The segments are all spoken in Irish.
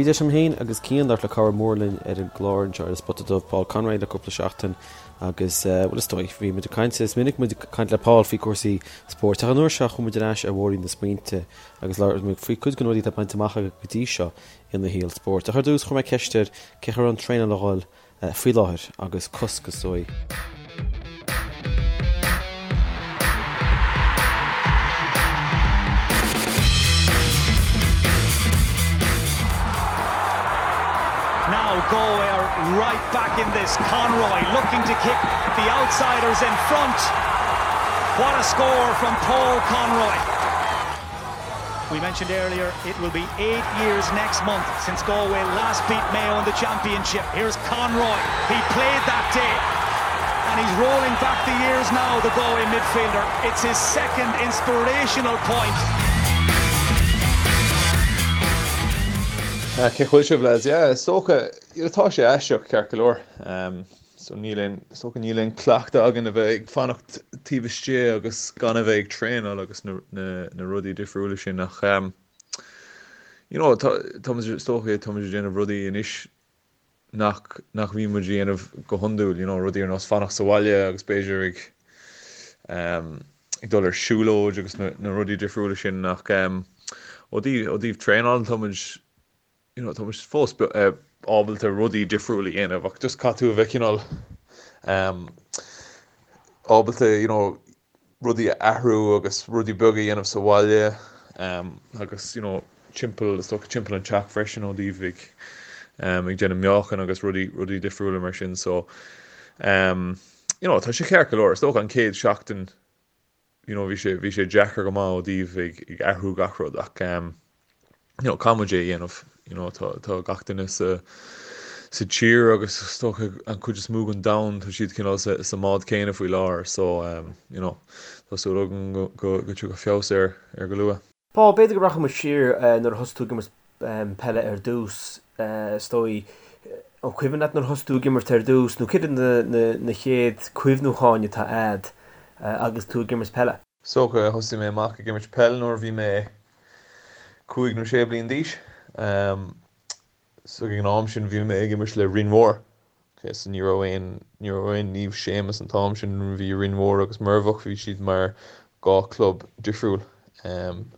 Bhí deis agam féin agus Cian labhairt le cara mór linn ar an gclár anseo ar An Spota Dubh, Paul Conroy le cúpla seachtain agus, bhuel is dóigh, bhí muid ag caint, is minic muid ag caint le Paul faoi cúrsaí spóirt ach an uair seo chuaigh muid ar ais ar bhóithrín na smaointe agus labhair muid faoi cuid de na rudaí atá bainte amach aige go dtí seo ina shaol spóirt. Ach ar dtús chuir mé ceist air cén chaoi a raibh an traenáil a dhul faoi láthair agus cosc is dóigh. Now Galway are right back in this. Conroy looking to kick the outsiders in front. What a score from Paul Conroy. We mentioned earlier it will be eight years next month since Galway last beat Mayo in the championship. Here's Conroy. He played that day. And he's rolling back the years now, the Galway midfielder. It's his second inspirational point. Cén chaoi a bhfuil sibh lads? Yeah, is dócha, tá sé aisteach ceart go leor. So níl aon, is dócha níl aon cleachtadh againn a bheith ag fanacht taobh istigh agus gan a bheith ag traenáil agus na, na, na rudaí difriúla sin ach ehm you know tá, tá muid, is dócha tá muid ag déanamh rudaí anois nach, nach mbíonn muid a dhéanamh go hiondúil, you know rudaí ar nós fanacht sa bhaile agus b'fhéidir ag ehm ag dul ar siúlóid agus na, na rudaí difriúla sin ach ehm ó dtaobh, ó dtaobh traenáil tá muid you know, tá muid fós ábalta rudaí difriúla a dhéanamh ach just caithfidh tú a bheith cineál um, ábalta you know, rudaí a athrú agus rudaí beaga a dhéanamh sa bhaile um, agus you know, timpeall is dócha timpeall an teach freisin ó dtaobh ag um, ag déanamh meáchan agus rudaí rudaí difriúla mar sin so um, you know, tá sé ceart go leor is dócha an chéad seachtain you know bhí sé bhí sé deacair go maith ó dtaobh ag ag athrú gach rud ach ehm you know caithfidh muid é a dhéanamh you know tá tá gach duine sa sa tír agus is dócha an chuid is mó den domhan tá siad cineál sa sa mbád céanna faoi láthair so ehm you know tá súil agam go go go dtiocfaidh feabhas air ar go luath. Paul, b'fhéidir go rachaidh muid siar nuair a thosaigh tú ag imirt peile ar dtús, is dóigh. An cuimhin leat nuair a thosaigh tú ag imirt ar dtús nó céard iad na chéad cuimhniúcháin atá a'd agus tú ag imirt peile? Is dócha, thosaigh mé amach ag imirt peil nuair a bhí mé cúig nó sé bliain d'aois. So ag an am sin bhí mé ag imirt le Rinn Mhór. Ok, so ní raibh aon, ní raibh aon Naomh Séamus an t-am sin, bhí Rinn Mhór agus Muirbheach, bhí siad mar dhá club difriúil. Em,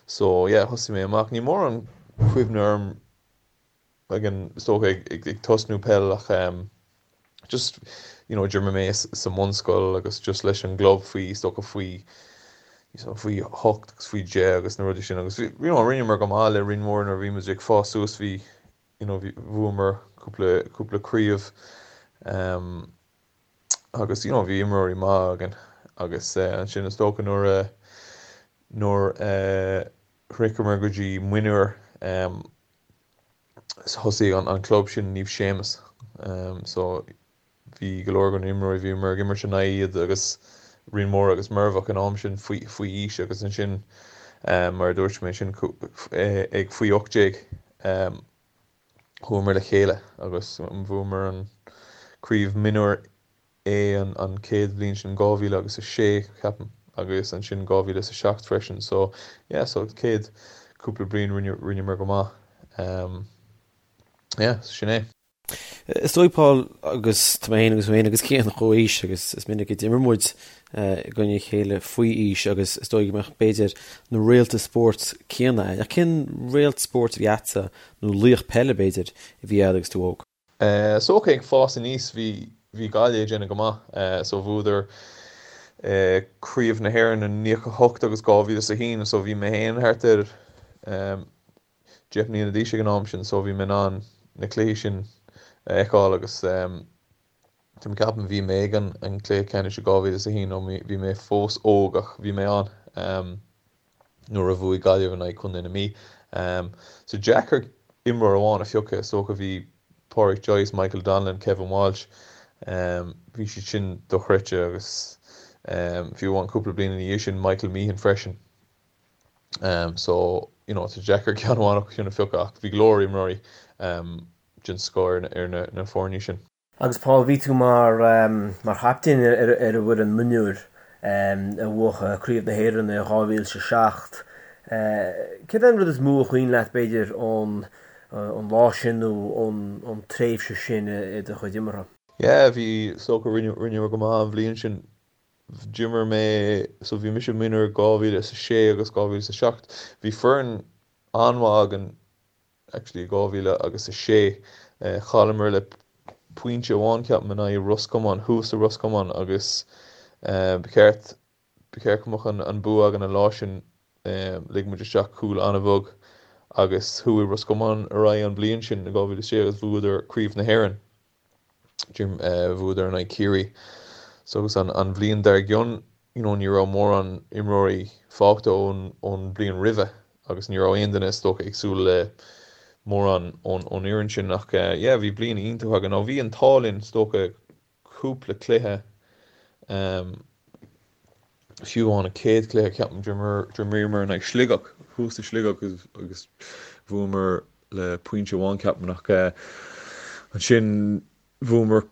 so yeah, thosaigh mé amach, níl mórán cuimhne orm ag an, is dócha ag, ag, ag tosnú peil ach em, just you know d'imir mé sa mbunscoil agus just leis an gclub faoi is dócha faoi faoi hocht agus faoi deich agus na rudaí sin agus you know rinneamar go maith le Rinn Mhór nuair a bhí muid ag fás suas bhí you know bhí bhuamar cúpla cúpla craobh um, agus you know bhí imreoirí maith againn agus uh, ansin is dócha nuair a nuair a uh, shroicheamar go dtí mionúir um, thosaigh an club sin Naomh Séamus so bhí go leor de na imreoirí, bhíomar ag imirt in aghaidh iad agus Rinn Mhór agus Muirbheach an am sin faoi faoi aois agus ansin mar a dúirt mé ansin ag faoi 18 chuamar le chéile agus bhuamar an craobh mionúir A an chéad bhliain sin 2000 agus 6 ceapaim agus ansin 2007 freisin so yeah so chéad cúpla bliain rinne rinneamar go maith um yeah sin é. Is dóigh Paul agus tá mé féin agus féin agus Cian chomh aois agus is minic a d'imir muid i gcoinne a chéile faoi aois agus is dóigh go mbeadh b'fhéidir na réalta spóirt céanna ach cén réalt spóirt a bhí a'dsa nó laoch peile b'fhéidir a bhí a'd agus tú óg? Is dócha ag fás aníos bhí bhí Gaillimh ag déanamh go maith so bhuadar Craobh na hÉireann in 98 agus 2001 so bhí mé féin thart ar 10 mbliana d'aois ag an am sin so bhí mé in ann na cluichí sin a fheiceáil agus tá mé ag ceapadh bhí mé ag an an cluiche ceannais i 2001 nó bhí mé fós óg ach bhí mé ann. nuair a bhuaigh Gaillimh in aghaidh Chontae na Mí. So deacair imreoir amháin a phiocadh, is dócha bhí Pádraic Joyce, Michael Donnellan, Kevin Walsh, bhí siad sin dochreidte agus fiú amháin cúpla bliain ina dhiaidh sin Michael Meehan freisin. So you know tá deacair ceann amháin acu sin a phiocadh ach bhí go leor imreoirí den scoth ar na foirne sin. Agus Paul, bhí tú mar mar chaptaen ar ar an bhfoireann mionúir a bhuaigh Craobh na hÉireann i 2007. Céard é an rud is mó a chuimhin leat, b'fhéidir, ón ón lá sin nó ón tréimhse sin i do chuid imeartha? Yeah, bhí, is dócha, rinneamar go maith an bhliain sin. D'imir mé, so bhí mise mionúr 2006 agus 2007. Bhí foireann an-mhaith againn actually i 2006. Chailleamar le pointe amháin ceapaim in aghaidh Ros Comáin, thuas i Ros Comáin agus ba cheart, ba cheart go mbeadh an bua againn an lá sin. Lig muid isteach cúl an-bheag agus chuaigh Ros Comáin ar aghaidh an bhliain sin i 2006 agus bhuadar Craobh na hÉireann. Bhuadar in aghaidh Ciarraí. So agus an an bhliain dár gcionn you know ní raibh mórán imreoirí fágtha ón ón bhliain roimhe agus ní raibh aon duine is dócha ag súil le mórán ón ón fhoireann sin ach yeah bhí bliain iontach againn. Nó bhí an t-ádh linn is dócha cúpla cluiche fiú amháin an chéad chluiche ceapaim d'imríomar in aghaidh Sligeach thuas i Sligeach agus bhuamar le pointe amháin ceapaim ach ansin bhuamar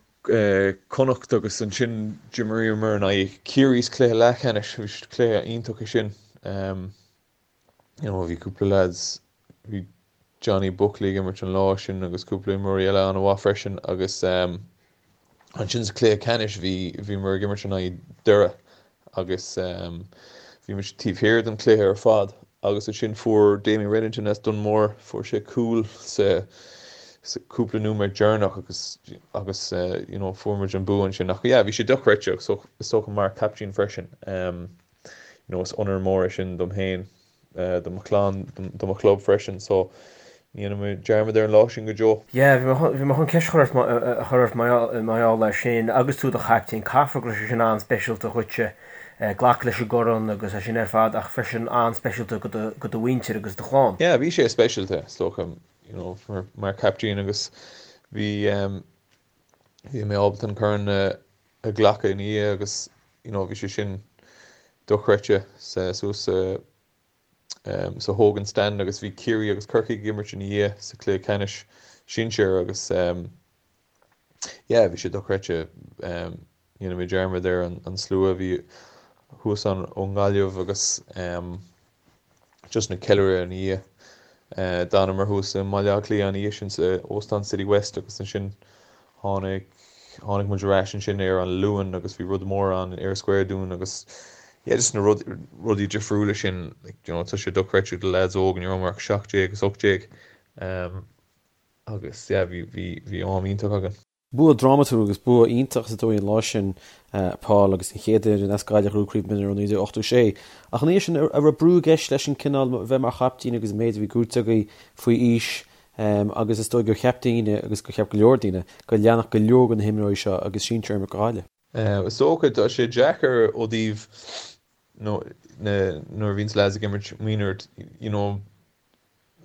Connacht agus ansin d'imríomar in aghaidh Ciarraí sa chluiche leathcheannais bhí cluiche iontach é sin. You know bhí cúpla lads, bhí Johnny Buckley ag imirt an lá sin agus cúpla imreoirí eile an-mhaith freisin agus ehm ansin sa chluiche ceannais bhí, bhíomar ag imirt in aghaidh Doire agus ehm bhí muid taobh thiar den chluiche ar fad agus ansin fuair Damien Reddington as Dún Mór, fuair sé cúl sa sa cúpla nóiméad deireanach agus agus eh you know fuair muid an bua ansin ach yeah bhí sé dochreidte so is dócha mar captaen freisin ehm you know is onóir mór é sin dom féin, do mo chlann, do mo chlub freisin so ní dhéanfaidh mé dearmad ar an lá sin go deo. Yeah, bhí mé chun, bhí mé chun ceist a chur ort, a chur ort mar gheall air sin agus tú i do chaiptín, caithfidh go raibh sé sin an-speisialta dhuitse, glacadh leis an gcorn agus é sin ar fad ach freisin an-speisialta go do, go do mhuintir agus do chlann. Yeah, bhí sé speisialta is dócha, you know, mar, mar chaiptín agus bhí, bhí mé ábalta an corn a, a ghlacadh ina dhiaidh agus you know bhí sé sin dochreidte suas sa sa Hogan Stand agus bhí Ciarraí agus Corcaigh ag imirt ina dhiaidh sa chluiche ceannais sinsir agus yeah bhí sé dochreidte ní dhéanfaidh mé dearmad ar an slua a bhí thuas ann ón nGaillimh agus just na ceiliúradh ina dhiaidh. D'fhanamar thuas i mBaile Átha Cliath an oíche sin sa Óstán City West agus ansin tháinig tháinig muid ar ais ansin ar an Luan agus bhí rud mór ann in Eyre Square dúinn agus yeah just na rud rudaí difriúla sin like you know tá sé dochreidte do lads óg ní rabhamar ach 17 agus 18 agus yeah bhí bhí bhí am iontach againn. Bua drámatúil agus bua iontach is dóigh an lá sin, Paul, agus an chéad fhoireann as Gaillimh a ghnóthaigh craobh mionúr ó 1986. Ach ina dhiaidh sin, an raibh brú i gceist leis an cineál bheith mar chaiptín agus an méid a bhí gnóthaithe agaibh faoi aois agus is dóigh gur cheap daoine agus gur cheap go leor daoine go leanfadh go leor de na himreoirí seo agus sinsir ag imirt do Ghaillimh. Is dócha, tá sé deacair ó thaobh nuair a bhíonns lads ag imirt mionúr, you know,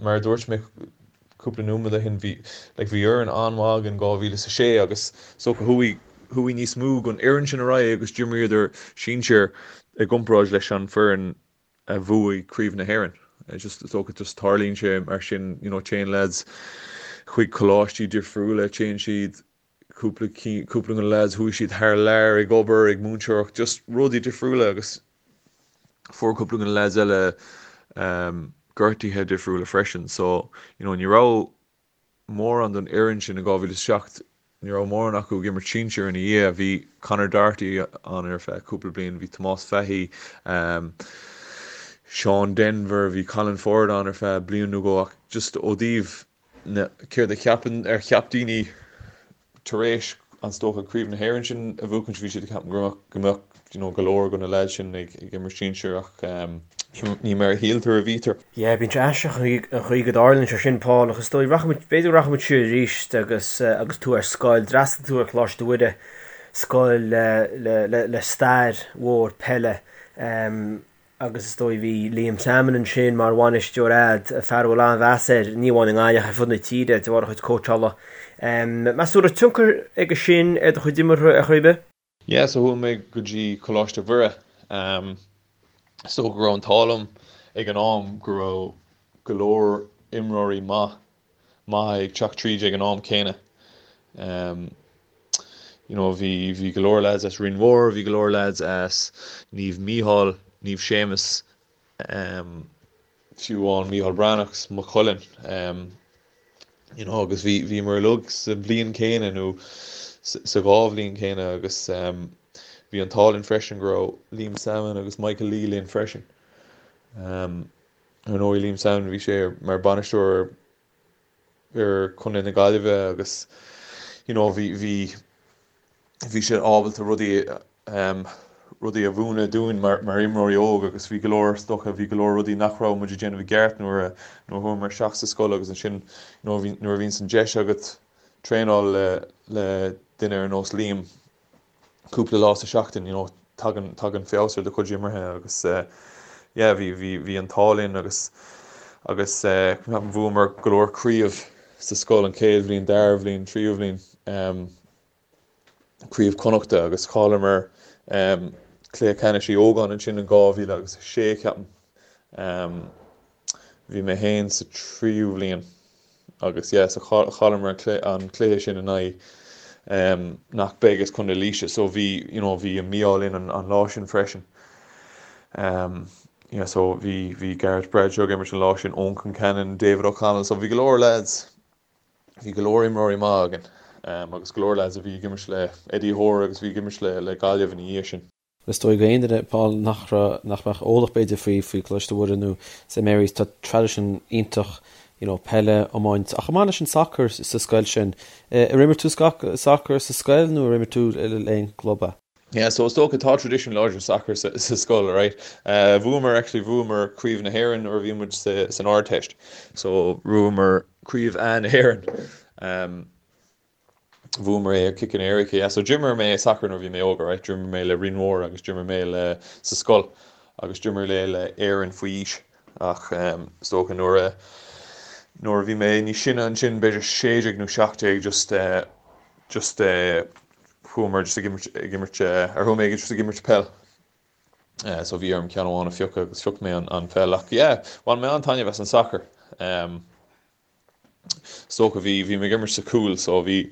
Mar a dúirt mé cúpla nóiméad ó shin, bhí like bhí fhoireann an-mhaith againn 2006 agus is dócha chuaigh chuaigh níos mó den fhoireann sin ar aghaidh agus d'imríodar sinsir i gcomparáid leis an foireann a bhuaigh Craobh na hÉireann. Just is dócha just tarlaíonn sé mar sin you know téann lads chuig coláistí difriúla, téann siad cúpla cúpla de na lads chuaigh siad thar lear ag obair, ag múinteoireacht, just rudaí difriúla agus fuair cúpla de na lads eile gortuithe difriúla freisin so you know ní raibh mórán den fhoireann sin i 2007, ní raibh mórán acu ag imirt sinsir ina dhiaidh. Bhí Conor Doherty ann ar feadh cúpla bliain, bhí Tomás Fahy, Seán Denvir, bhí Colin Forde ann ar feadh bliain nó dhó ach just ó thaobh na céard a cheapann ar cheap daoine tar éis is dócha Craobh na hÉireann sin a bhuachaint bhí siad ag ceapadh go mbeadh go mbeadh you know go leor de na lads sin ag ag imirt sinsir ach ní mar a shíltear a bhítear. Yeah, bíonn sé aisteach an chaoi go dtarlaíonn sé sin, Paul, ach is dóigh, rachaimid, b'fhéidir go rachaimid siar arís agus agus tú ar scoil, d'fhreastail tú ar Choláiste Mhuire, scoil le le le le stair mhór peile. Agus is dóigh bhí Liam Sammon ansin mar bhainisteoir a'd, fear a bhfuil an-mheas air, ní amháin i nGaillimh ach ar fud na tíre de bharr a chuid cóitseála. Meas tú raibh tionchar aige sin ar do chuid imeartha ar chor ar bith? Yeah, so chuaigh mé go dtí Coláiste Mhuire. Is dócha go raibh an t-ádh liom ag an am go raibh go leor imreoirí maith maithe ag teacht tríd ag an am céanna. You know, bhí, bhí go leor lads as Rinn Mhór, bhí go leor lads as Naomh Mícheál, Naomh Séamus, fiú amháin Mícheál Breathnach, Maigh Cuilinn. You know agus bhí bhíomar uilig sa bhliain céanna nó sa dhá bhliain céanna agus bhí an t-ádh linn freisin go raibh Liam Sammon agus Michael Lee linn freisin. Ar ndóigh Liam Sammon bhí sé mar bainisteoir ar Chontae na Gaillimhe agus you know bhí bhí bhí sé ábalta rudaí rudaí a mhúineadh dúinn mar mar imreoirí óg agus bhí go leor is dócha bhí go leor rudaí nach raibh muid ag déanamh i gceart nuair a nuair a chuamar isteach sa scoil agus ansin you know bhí nuair a bhíonns an deis agat traenáil le le duine ar nós Liam cúpla lá sa seachtain you know tagann tagann feabhas ar do chuid imeartha agus yeah bhí bhí bhí an t-ádh linn agus agus bhuamar go leor craobh sa scoil an chéad bhliain, dara bhliain, tríú bhliain craobh Connachta agus chailleamar cluiche ceannais Uí Ógáin ansin in 2000 agus 6 ceapaim. Bhí mé féin sa tríú bhliain agus yeah so chailleamar an cluiche sin in aghaidh nach beag as Contae Laoise so bhí you know bhí an mí-ádh linn an lá sin freisin. Yeah so bhí bhí Gareth Bradshaw ag imirt an lá sin, Eoin Concannon, David O'Connell so bhí go leor lads bhí go leor imreoirí maith againn agus go leor lads a bhí ag imirt le Eddie Hoare agus bhí ag imirt le le Gaillimh ina dhiaidh sin. Is dóigh go aon duine, Paul, nach raibh, nach mbeadh eolach b'fhéidir faoi, faoi Coláiste Mhuire nó St Mary's, tá traidisiún iontach you know peile, iomáint ach chomh maith leis an sacar sa scoil sin. Ar imir tú sacar sa scoil nó ar imir tú le aon gclub é? Yeah, so is dócha tá traidisiún láidir sacair sa, sa scoil, right? Bhuamar, actually bhuamar Craobh na hÉireann nuair a bhí muid sa, san Ardteist. So bhuamar Craobh A na hÉireann. Bhuamar é ar ciceanna éirice, yeah. So d'imir mé sacar nuair a bhí mé óg, alright. D'imir mé le Rinn Mhór agus d'imir mé le sa scoil agus d'imir mé le Éirinn faoi aois ach is dócha nuair a nuair a bhí mé níos sine ansin, b'fhéidir 16 nó 17 just just chuamar just ag imirt ag imirt ar chuaigh mé just ag imirt peil. So bhí orm ceann amháin a phiocadh agus phioc mé an pheil ach yeah, bhain mé an-taitneamh as an sacar. Is dócha bhí, bhí mé ag imirt sa chúl so bhí,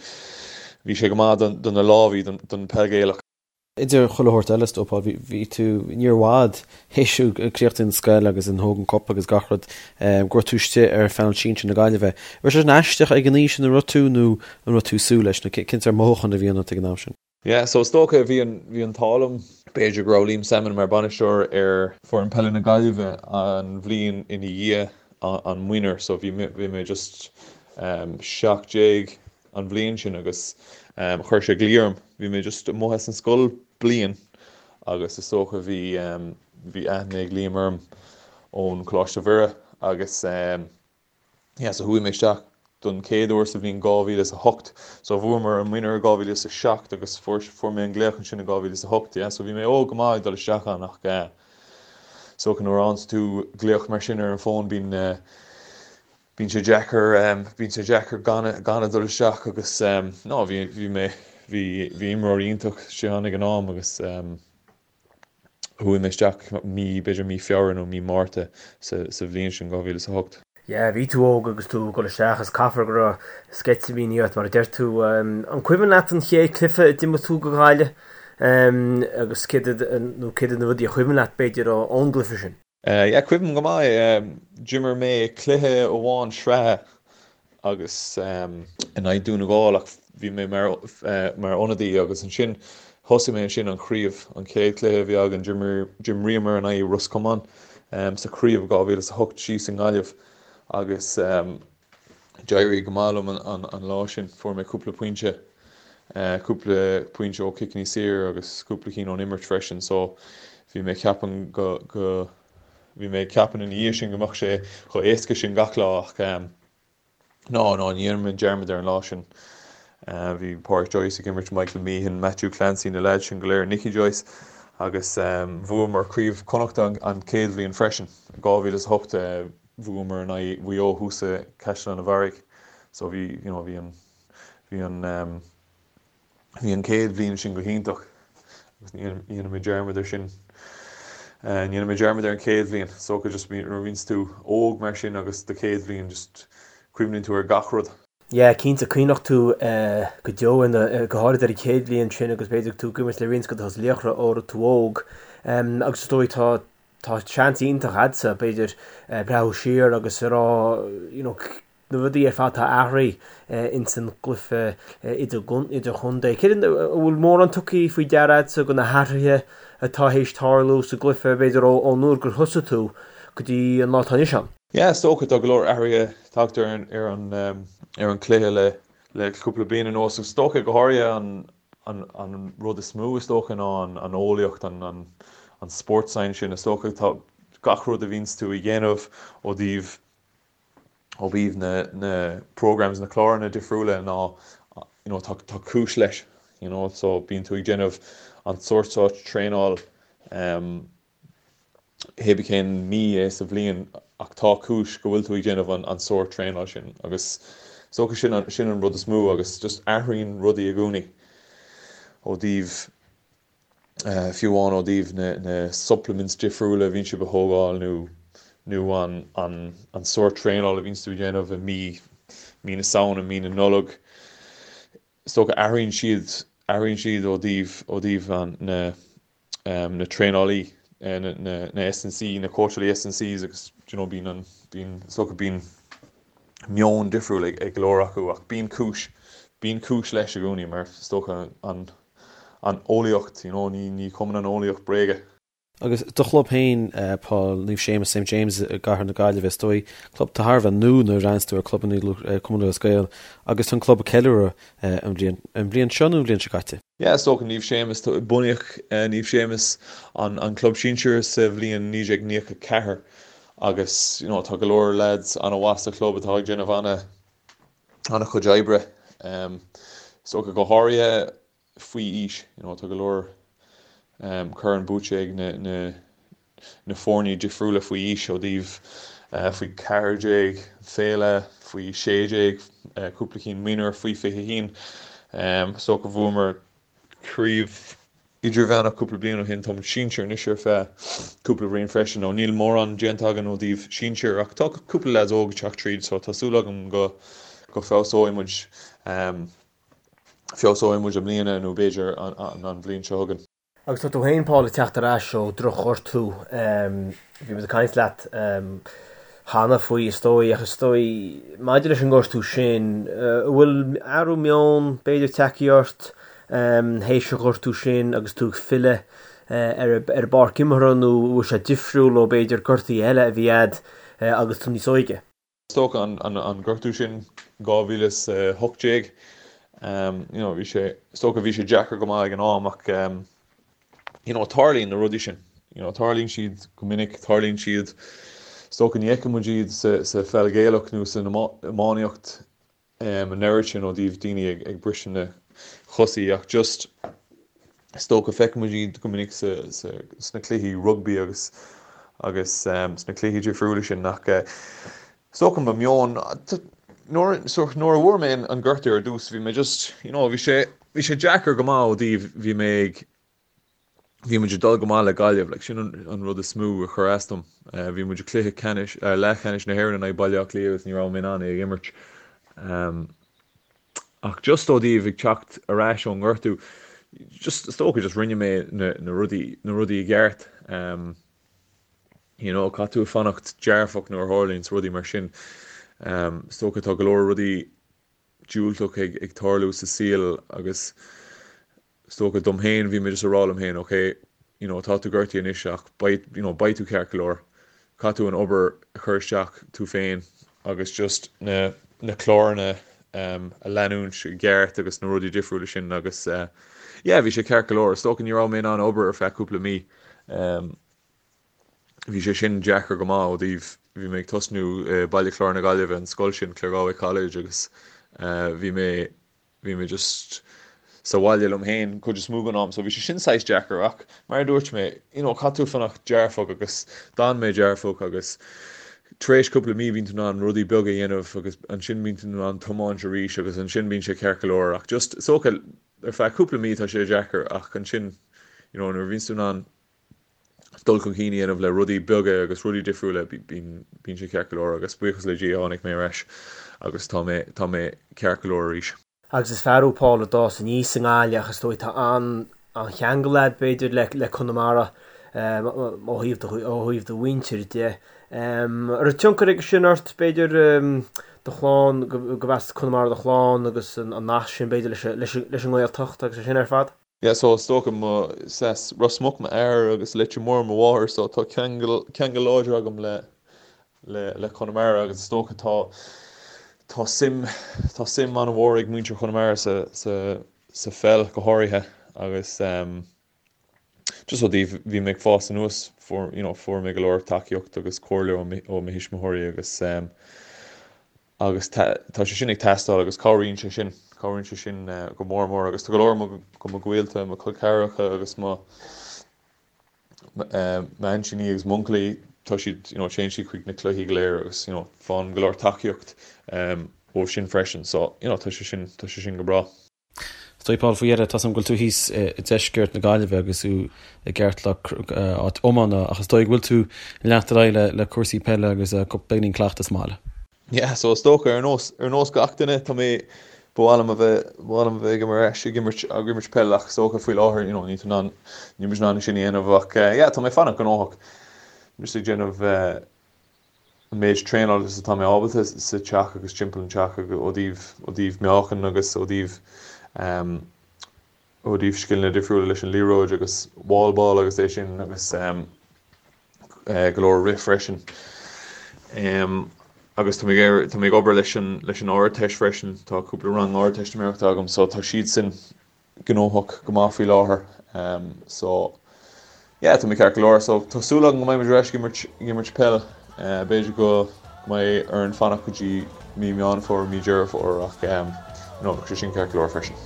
bhí sé go maith don, do na lámhaí, don, don peil Gaelach. Idir chuile shórt eile is dóigh, Paul, bhí, bhí tú, ní raibh i bhfad théis tú críochnú an scoil agus an Hogan Cup agus gach rud, go raibh tú istigh ar phainéal sinsir na Gaillimhe. Raibh sé sin aisteach ag an aois ina raibh tú nó an raibh tú ag súil leis nó cén sórt mothúchán a bhí ionat ag an am sin? Yeah, so is dócha bhí an, bhí an t-ádh liom, b'fhéidir go raibh Liam Sammon mar bainisteoir ar foireann peile na Gaillimhe an bhliain ina dhiaidh an Minor, so bhí mé, bhí mé just 17 an bhliain sin agus chuir sé glaoch orm, bhí mé just amuigh as an scoil bliain agus is dócha bhí, bhí aithne ag Liam orm ón Coláiste Mhuire agus. Yeah, so chuaigh mé isteach don chéad uair sa bhliain 2008. So bhuamar an Minor i 2007 agus fuair fuair mé an glaoch ansin i 2008. Yeah, so bhí mé óg go maith ag dul isteach ann ach eh is dócha nuair a fhaigheanns tú glaoch mar sin ar an bhfón bíonn eh bíonn sé deacair eh bíonn sé deacair gan gan a dul isteach agus eh no bhí bhí mé bhí bhí imreoirí iontach istigh ann ag an am agus eh Chuaigh mé isteach mí, b'fhéidir mí Feabhra nó mí Márta sa bhliain sin, 2008. Yeah, bhí tú óg agus tú ag dul isteach is caithfear go raibh sceitimíní ort mar a deir tú. An cuimhin leat an chéad cluiche a d'imir tú do Ghaillimh agus céard nó céard iad na rudaí a chuimhin leat b'fhéidir ón gcluiche sin? Yeah, cuimhním go maith. D'imir mé cluiche amháin sraithe agus in aghaidh Dún na nGall ach bhí mé mar mar ionadaí agus ansin thosaigh mé ansin an chraobh, an chéad chluiche a bhí againn, d'imríomar in aghaidh Ros Comáin sa chraobh 2008 síos i nGaillimh agus D'éirigh go maith liom an lá sin. Fuair mé cúpla pointe, cúpla pointe ó chiceanna saor agus cúpla cinn ón imirt freisin so bhí mé ag ceapadh go, go, bhí mé ag ceapadh ina dhiaidh sin go mbeadh sé chomh éasca sin gach lá ach ná, ná, ní dhéanfaidh mé dearmad ar an lá sin. Bhí Pádraic Joyce ag imirt, Michael Meehan, Matthew Clancy, na leaids sin go léir, Nicky Joyce agus bhuamar Craobh Chonnachta an chéad bhliain freisin, 2008. Bhuamar in aghaidh Mhaigh Eo thuas i Caisleán an Bharraigh so bhí you know bhí an bhí an ehm bhí an chéad bhliain sin go hiontach agus ní dhéanfaidh mé dearmad ar sin eh ní dhéanfaidh mé dearmad ar an chéad bhliain so just nuair a bhíonns tú óg mar sin agus do chéad bhliain just cuimhníonn tú ar gach rud. Yeah, cinnte, cuimhneoidh tú go deo ina, go háirid ar an chéad bhliain sin agus b'fhéidir tú ag imirt le roinnt de na laochra ó raibh tú óg. Agus is dóigh tá Tá seans iontach a'dsa, b'fhéidir, breathnú siar agus a rá, you know, na rudaí ar fad atá athraithe ins an gcluiche idirchontae. Céard an bhfuil mórán tugtha faoi deara agatsa de na hathruithe atá théis tarlú sa gcluiche, b'fhéidir ón uair gur thosaigh tú go dtí an lá atá anois ann? Yeah, is dócha, tá go leor athruithe tagtha ar an ar an ar an cluiche le le cúpla bliain anuas. Is dócha go háirithe an an an rud is mó is dócha ná an an eolaíocht, an an an sports science sin. Is dócha tá gach rud a bhíonns tú a dhéanamh ó thaobh ó thaobh na na programs, na cláranna difriúla ná you know tá tá cúis leis you know so bíonn tú ag déanamh an sórt seo traenáil um, hé bith cén mí é sa bhliain ach tá cúis go bhfuil tú ag déanamh an an sórt traenáil sin agus is dócha sin an sin an rud is mó agus just athraíonn rudaí i gcónaí ó thaobh fiú amháin ó thaobh na na supplements difriúla a bhíonn sibh a thógáil nó nó an an an sórt traenáil a bhíonns tú ag déanamh i mí mí na Samhna, mí na Nollag. Is dócha athraíonn siad athraíonn siad ó thaobh ó thaobh an na na traenálaí na na na S&C na cóitseálaí S&Cs agus do you know bíonn an bíonn is dócha bíonn meon difriúil ag ag go leor acu ach bíonn cúis bíonn cúis leis i gcónaí mar is dócha an an eolaíocht you know ní ní chumann an eolaíocht bréaga. Agus do chlub féin, Paul, Naomh Séamus, St James i gCathair na Gaillimhe, is dóigh, club atá thar a bheith nua nuair a bhreathnaíonns tú ar clubanna Cumann Lúthchleas Gael agus tá an club ag ceiliúradh an bhliain, an bhliain seo nó an bhliain seo caite? Yeah, is dócha Naomh Séamus, bunaíodh Naomh Séamus, an an club sinsir sa bhliain 1994 agus you know tá go leor lads an-mhaith sa chlub atá ag déanamh ana ana-chuid oibre. Is dócha go háirithe faoi aois. You know, tá go leor corn buaite ag na, na, na foirne difriúla faoi aois ó thaobh faoi 14, féile, faoi 16, cúpla cinn mionúr, faoi 21. Is dócha bhuamar craobh idirmheánach cúpla bliain ó shin, tá muid sinsir anois ar feadh cúpla bliain freisin. Nó níl mórán déanta againn ó thaobh sinsir ach tá cúpla lads óg ag teacht tríd so tá súil agam go go feabhsóidh muid. Feabhsóidh muid i mbliana nó b'fhéidir an bhliain seo chugainn. Agus tá tú féin, Paul, ag teacht ar ais ó dhroch-ghortú. Bhí muid ag caint leat cheana faoi, is dóigh, ach is dóigh, maidir leis an ngortú sin, an bhfuil athrú meoin, b'fhéidir, tagtha ort théis an ghortú sin agus tú ag filleadh ar an bpáirc imeartha nó an bhfuil sé difriúil ó, b'fhéidir, gortuithe eile a bhí a'd agus tú níos óige? Is dócha an gortú sin 2018, you know, bhí sé, is dócha bhí sé deacair go maith ag an am ach you know, tarlaíonn na rudaí sin, you know, tarlaíonn siad go minic, tarlaíonn siad, is dócha ní fheiceann muid iad sa, sa pheil Ghaelach nó san iománaíocht an oiread sin ó thaobh daoine ag briseadh na chosaí ach just is dócha feiceann muid iad go minic sna cluichí rugbaí agus agus sna cluichí difriúla sin ach is dócha mo meon nuair nuair a bhfuair mé an gortú ar dtús bhí mé just you know bhí sé bhí sé deacair go maith ó thaobh bhí mé ag Bhí muid ag dul go maith le Gaillimh, like, sin an rud is mó a chuir as dom. Bhí muid i cluiche ceannais, leathcheannais na hÉireann in aghaidh Baile Átha Cliath agus ní raibh mé in ann é a imirt. Ach just ó thaobh ag teacht ar ais ón ngortú, just, is dócha just rinne mé na, na rudaí, na rudaí i gceart. You know, caithfidh tú fanacht dearfach nuair a tharlaíonns rudaí mar sin. Is dócha tá go leor rudaí diúltach ag, ag tarlú sa saol agus Is dócha dom féin, bhí mé just ag rá liom féin, ok, you know, tá tú gortaithe anois ach beidh, you know, beidh tú ceart go leor. Caithfidh tú an obair a chur isteach tú féin agus just na, na cláranna um, a leanúint i gceart agus na rudaí difriúla sin agus uh, yeah, bhí sé ceart go leor. Is dócha ní raibh mé in ann obair ar feadh cúpla mí. Um, bhí sé sin deacair go maith ó thaobh, bhí mé ag tosnú i Baile Chláir na Gaillimhe, an scoil sin, Claregalway College agus uh, bhí mé Bhí mé just sa bhaile liom féin cuid is mó den am so bhí sé sin saghas deacair ach mar a dúirt mé you know caithfidh tú fanacht dearfach agus d'fhan mé dearfach agus tar éis cúpla mí bíonn tú in ann rudaí beaga a dhéanamh agus ansin bíonn tú in ann tiomáint arís agus ansin bíonn sé ceart go leor ach just is dócha ar feadh cúpla mí tá sé deacair ach ansin you know nuair a bhíonns tú in ann dul chun cinn a dhéanamh le rudaí beaga agus rudaí difriúla, bíonn sé ceart go leor agus buíochas le Dia tháinig mé ar ais agus tá mé, tá mé ceart go leor arís. Agus is fear thú Paul a d'fhás aníos i nGaillimh ach is dóigh tá an-cheangal agat b'fhéidir le, le Conamara ó thaobh do, ó thaobh do mhuintir de. An raibh tionchar aige sin ort b'fhéidir? do chlann, gurb as Conamara do chlann agus an nasc sin b'fhéidir leis an nGaeltacht agus é sin ar fad? Yeah so is dócha mo, is as Ros Muc m'athair agus Leitir Móir mo mháthair so tá ceangal, ceangal láidir agam le, le, le Conamara agus is dócha tá, tá suim, tá suim an-mhór ag muintir Chonamara sa, sa, sa pheil go háirithe agus ehm just ó dtaobh bhí mé ag fás anuas fuair, you know, fuair mé go leor tacaíocht agus comhairle ó ó mo thuismitheoirí agus ehm agus tá sé sin ag teastáil agus cabhraíonn sé sin, cabhraíonn sé sin go mór mór agus tá go leor de mo ghaolta, mo chol ceathracha agus mo m'aintíní agus m'uncailí, tá siad, you know, téann siad chuig na cluichí go léir agus, you know, faigheann go leor tacaíocht ó sin freisin so, you know, tá sé sin, tá sé sin go breá. Is dóigh, Paul, faoi dheireadh, tá 's agam go bhfuil tú thíos i deisceart na Gaillimhe agus tú i gceartlár áit iomána ach is dóigh go bhfuil tú ag leanacht ar aghaidh le cúrsaí peile agus beagáinín cleachtas sa mbaile. Yeah, so is dócha, ar nós, ar nós gach duine, tá mé, ba mhaith liom a bheith, ba mhaith liom a bheith ag ar ais ag imirt, ag imirt peil ach is dócha faoi láthair, you know, níl tú in ann, níl muid in ann sin a dhéanamh ach yeah, tá mé ag fanacht gnóthach, just ag déanamh an méid traenáil is atá mé ábalta sa teach agus timpeall an teach agus ó thaobh, ó thaobh meáchan agus ó thaobh ehm ó thaobh scileanna difriúla leis an liathróid agus wall ball agus é sin agus ehm go leor rith freisin. Ehm agus tá mé ag tá mé ag obair leis an leis an Ardteist freisin, tá cúpla rang Ardteistiméireachta agam so tá siad sin gnóthach go maith faoi láthair so yeah tá mé ceart go leor so tá súil agam go mbeidh muid ar ais ag imirt ag imirt peil b'fhéidir go mbeidh orainn fanacht go dtí mí Meán Fómhair mí Deireadh Fómhair ach you know bheadh sé sin ceart go leor freisin.